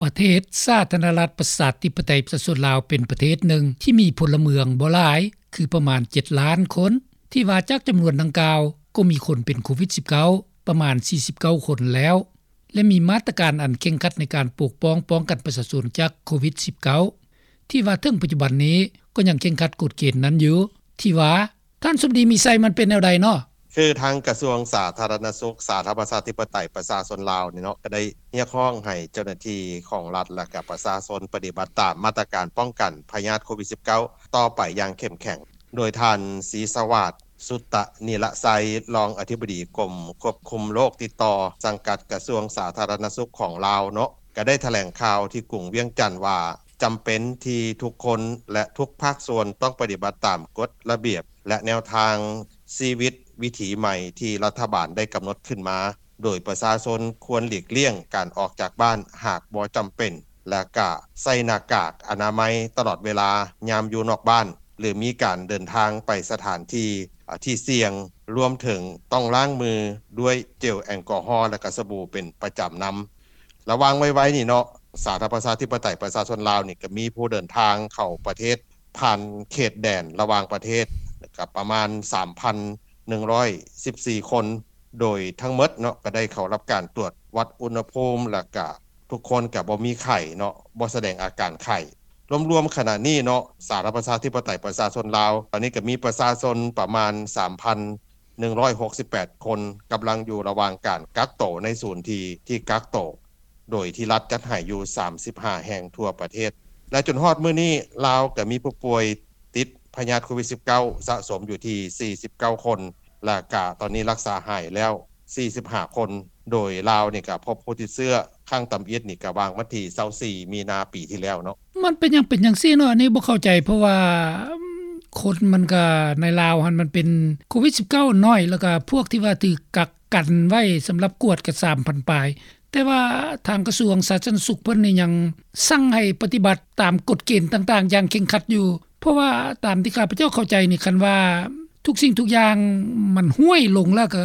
ປະເທດສາທາລະນະລັດ ປະຊາທິປະໄຕ ປະຊາຊົນລາວ ເປັນປະເທດໜຶ່ງທີ່ມີພົນລະເມືອງບໍ່ຫຼາຍ ຄືປະມານ ເຈັດລ້ານຄົນ ທີ່ວ່າຈາກຈຳນວນດັ່ງກ່າວ ກໍມີຄົນເປັນໂຄວິດ-19 ປະມານ ສີ່ສິບເກົ້າຄົນແລ້ວ ແລະ ມີມາດຕະການອັນເຄັ່ງຄັດໃນການປົກປ້ອງ ປ້ອງກັນປະຊາຊົນຈາກໂຄວິດ-19 ທີ່ວ່າເຖິງປັດຈຸບັນນີ້ ກໍຍັງເຄັ່ງຄັດກົດເກນນັ້ນຢູ່ ທີ່ວ່າ ທ່ານສົມດີ ມີໄຊ ມັນເປັນແນວໃດເນາະ? ຄືທາງກະຊວງສາທາລະນະສຸກ ສາທາລະນະລັດ ປະຊາທິປະໄຕ ປະຊາຊົນລາວນີ້ເນາະ ກໍໄດ້ຮຽກຮ້ອງໃຫ້ເຈົ້າໜ້າທີ່ຂອງລັດ ແລະ ກະປະຊາຊົນປະຕິບັດຕາມມາດຕະການປ້ອງກັນພະຍາດໂຄວິດ-19 ຕໍ່ໄປຢ່າງເຂັ້ມແຂງ. ໂດຍທ່ານ ສີສະຫວາດ ສຸດຕະນິລະໄຊ ຮອງອະທິບໍດີກົມຄວບຄຸມໂລກຕິດຕໍ່ ສັງກັດກະຊວງສາທາລະນະສຸກຂອງລາວເນາະ ກໍໄດ້ຖະແຫຼງຂ່າວທີ່ກຸງວຽງຈັນວ່າ ຈຳເປັນທີ່ທຸກຄົນ ແລະ ທຸກພາກສ່ວນຕ້ອງປະຕິບັດຕາມກົດລະບຽບ ແລະ ແນວທາງຊີວິດວິຖີໃໝ່ທີ່ລັດຖະບານໄດ້ກຳນົດຂຶ້ນມາ, ໂດຍປະຊາຊົນຄວນຫຼີກລ່ຽງການອອກຈາກບ້ານຫາກບໍ່ຈຳເປັນ ແລະ ກະໃສ່ໜ້າກາກອະນາໄມຕະຫຼອດເວລາຍາມຢູ່ນອກບ້ານ ຫຼື ມີການເດີນທາງໄປສະຖານທີ່ ທີ່ສ່ຽງ, ລວມເຖິງຕ້ອງລ້າງມືດ້ວຍເຈວແອລກໍຮໍ ແລະ ກະສະບູເປັນປະຈຳນຳ. ລະຫວ່າງໄວໆນີ້ເນາະ ສາທາລະນະລັດ ປະຊາທິປະໄຕ ປະຊາຊົນລາວນີ້ ກໍມີຜູ້ເດີນທາງເຂົ້າປະເທດຜ່ານເຂດແດນລະຫວ່າງປະເທດ ກໍປະມານ ສາມພັນໜຶ່ງຮ້ອຍສິບສີ່ຄົນ ໂດຍທັງໝົດເນາະ ກໍໄດ້ເຂົ້າຮັບການຕວດວັດອຸນຫະພູມ ແລ້ວກະທຸກຄົນກະບໍ່ມີໄຂ້ເນາະ ບໍ່ສະແດງອາການໄຂ້. ລວມໆຂະນະນີ້ເນາະ ສາທາລະນະລັດ ປະຊາທິປະໄຕ ປະຊາຊົນລາວ ຕອນນີ້ກໍມີປະຊາຊົນປະມານ ສາມພັນໜຶ່ງຮ້ອຍຫົກສິບແປດຄົນ ກຳລັງຢູ່ລະຫວ່າງການກັກໂຕໃນສູນທີ່ ທີ່ກັກໂຕ ໂດຍທີ່ລັດຈັດໃຫ້ຢູ່ ສາມສິບຫ້າແຫ່ງທົ່ວປະເທດ ແລະ ຈົນຮອດມື້ນີ້ ລາວກໍມີຜູ້ປ່ວຍຕິດພະຍາດໂຄວິດ-19 ສະສົມຢູ່ທີ່ ສີ່ສິບເກົ້າຄົນ ແລະ ກະຕອນນີ້ລັກສາຫາຍແລ້ວ ສີ່ສິບຫ້າຄົນ ໂດຍລາວນີ້ກະພົບຜູ້ຕິດເຊື້ອຄັ້ງຕຳອິດນີ້ກະຫວ່າງວັນທີ ຊາວສີ່ ມີນາປີທີ່ແລ້ວເນາະ. ມັນເປັນຫຍັງເປັນຈັ່ງຊີ້ເນາະ ອັນນີ້ບໍ່ເຂົ້າໃຈ ເພາະວ່າຄົນມັນກະໃນລາວຫັ້ນມັນເປັນໂຄວິດ-19 ໜ້ອຍ ແລ້ວກະພວກທີ່ວ່າຖືກກັກກັນໄວ້ສຳລັບກວດກະ ສາມພັນປາຍ ແຕ່ວ່າທາງກະຊວງສາທາລະນະສຸກເພິ່ນນີ້ຍັງສັ່ງໃຫ້ປະຕິບັດຕາມກົດເກນຕ່າງໆຢ່າງເຄັ່ງຄັດຢູ່ ເພາະວ່າຕາມທີ່ຂ້າພະເຈົ້າເຂົ້າໃຈນີ້ ຄັນວ່າທຸກສິ່ງທຸກຢ່າງມັນຫ້ວຍລົງແລ້ວ ກໍ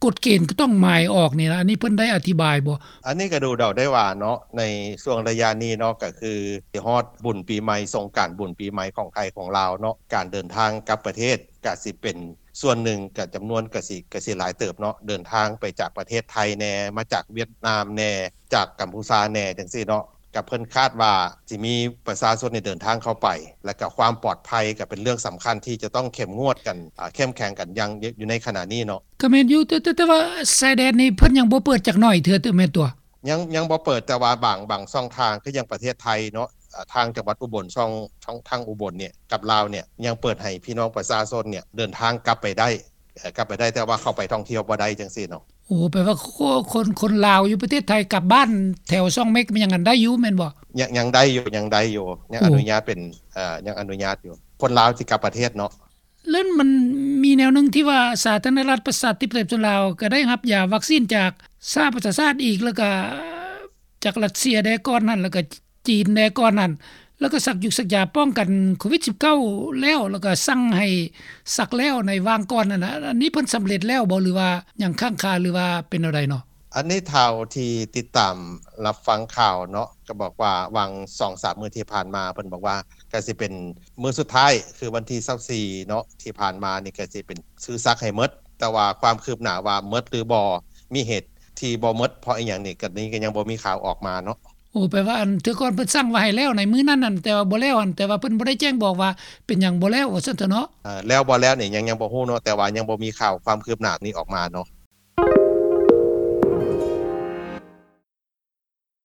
ກົດເກນກໍຕ້ອງມາຍອອກນີ້ນະ ອັນນີ້ເພິ່ນໄດ້ອະທິບາຍບໍ່? ອັນນີ້ກໍດູເດົາໄດ້ວ່າເນາະ ໃນຊ່ວງໄລຍະນີ້ເນາະ ກໍຄືຊິຮອດບຸນປີໃໝ່ ສົງການບຸນປີໃໝ່ຂອງໄທຂອງລາວເນາະ ການເດີນທາງກັບປະເທດກໍຊິເປັນ ສ່ວນໜຶ່ງກໍຈຳນວນກໍຊິ ກໍຊິຫຼາຍເຕີບເນາະ ເດີນທາງໄປຈາກປະເທດໄທແດ່ ມາຈາກຫວຽດນາມແດ່ ຈາກກຳພູຊາແດ່ ຈັ່ງຊີ້ເນາະ ກໍເພິ່ນຄາດວ່າຊິມີປະຊາຊົນນີ້ເດີນທາງເຂົ້າໄປ ແລ້ວກໍຄວາມປອດໄພກໍເປັນເລື່ອງສຳຄັນທີ່ຈະຕ້ອງເຂັ້ມງວດກັນ ອາ ເຂັ້ມແຂງກັນຢ່າງ ຢູ່ໃນຂະນະນີ້ເນາະ. ກໍແມ່ນຢູ່ ແຕ່ ແຕ່ ແຕ່ວ່າຊາຍແດນນີ້ເພິ່ນຍັງບໍ່ເປີດຈັກໜ້ອຍເທື່ອ ແມ່ນຕົວະ? ຍັງ ຍັງບໍ່ເປີດ ແຕ່ວ່າບາງ ບາງຊ່ອງທາງ ຄືຢ່າງປະເທດໄທເນາະ ອາ ທາງຈັງຫວັດອຸບົນ ຊ່ອງ ທາງ ທາງອຸບົນນີ້ກັບລາວນີ້ ຍັງເປີດໃຫ້ພີ່ນ້ອງປະຊາຊົນນີ້ເດີນທາງກັບໄປໄດ້ ເອີ ກັບໄປໄດ້ ແຕ່ວ່າເຂົ້າໄປທ່ອງທ່ຽວບໍ່ໄດ້ ຈັ່ງຊີ້ເນາະ. ໂອ້ ແປວ່າ ຄົນ ຄົນລາວຢູ່ປະເທດໄທກັບບ້ານແຖວຊ່ອງເມັກ ມັນຍັງອັນໄດ້ຢູ່ແມ່ນບໍ່? ຍັງ ຍັງໄດ້ຢູ່ ຍັງໄດ້ຢູ່ ຍັງ ໂອ້ ອະນຸຍາດເປັນ ເອີ ຍັງອະນຸຍາດຢູ່ ຄົນລາວທີ່ກັບປະເທດເນາະ. ແລ້ວມັນມີແນວໜຶ່ງທີ່ວ່າ ສາທາລະນະລັດ ປະຊາທິປະໄຕ ປະຊາຊົນລາວ ກໍໄດ້ຮັບຢາວັກຊີນຈາກສະຫະປະຊາຊາດອີກ ແລ້ວກໍຈາກຣັດເຊຍແດ່ກ່ອນຫັ້ນ ແລ້ວກໍຈີນແດ່ກ່ອນຫັ້ນ ແລ້ວກໍສັກຢູກສັກຢາປ້ອງກັນໂຄວິດ-19 ແລ້ວ ແລ້ວກໍສັ່ງໃຫ້ສັກແລ້ວໃນຫວ່າງກ່ອນຫັ້ນນະ. ອັນນີ້ເພິ່ນສຳເລັດແລ້ວບໍ່ ຫຼືວ່າຍັງຄ້າງຄາ ຫຼືວ່າເປັນແນວໃດເນາະ? ອັນນີ້ເທົ່າທີ່ຕິດຕາມຮັບຟັງຂ່າວເນາະ ກໍບອກວ່າຫວ່າງສອງສາມມື້ທີ່ຜ່ານມາ ເພິ່ນບອກວ່າກໍຊິເປັນມື້ສຸດທ້າຍ ຄືວັນທີຊາວສີ່ເນາະ ທີ່ຜ່ານມານີ້ກໍຊິເປັນ ຄືສັກໃຫ້ໝົດ ແຕ່ວ່າຄວາມຄືບໜ້າວ່າໝົດຫຼືບໍ່ ມີເຫດທີ່ບໍ່ໝົດເພາະອີ່ຫຍັງນີ້ ກໍນີ້ກໍຍັງບໍ່ມີຂ່າວອອກມາເນາະ. ໂອ້ ແປວ່າອັນເທື່ອກ່ອນເພິ່ນສັ່ງວ່າໃຫ້ແລ້ວໃນມື້ນັ້ນນັ້ນ ແຕ່ວ່າບໍ່ແລ້ວຫັ້ນ ແຕ່ວ່າເພິ່ນບໍ່ໄດ້ແຈ້ງບອກວ່າເປັນຫຍັງບໍ່ແລ້ວ ວ່າຊັ້ນເຖາະເນາະ. ເອີ ແລ້ວບໍ່ແລ້ວນີ້ ຍັງ ຍັງບໍ່ຮູ້ເນາະ ແຕ່ວ່າຍັງບໍ່ມີຂ່າວຄວາມຄືບໜ້ານີ້ອອກມາເນາະ.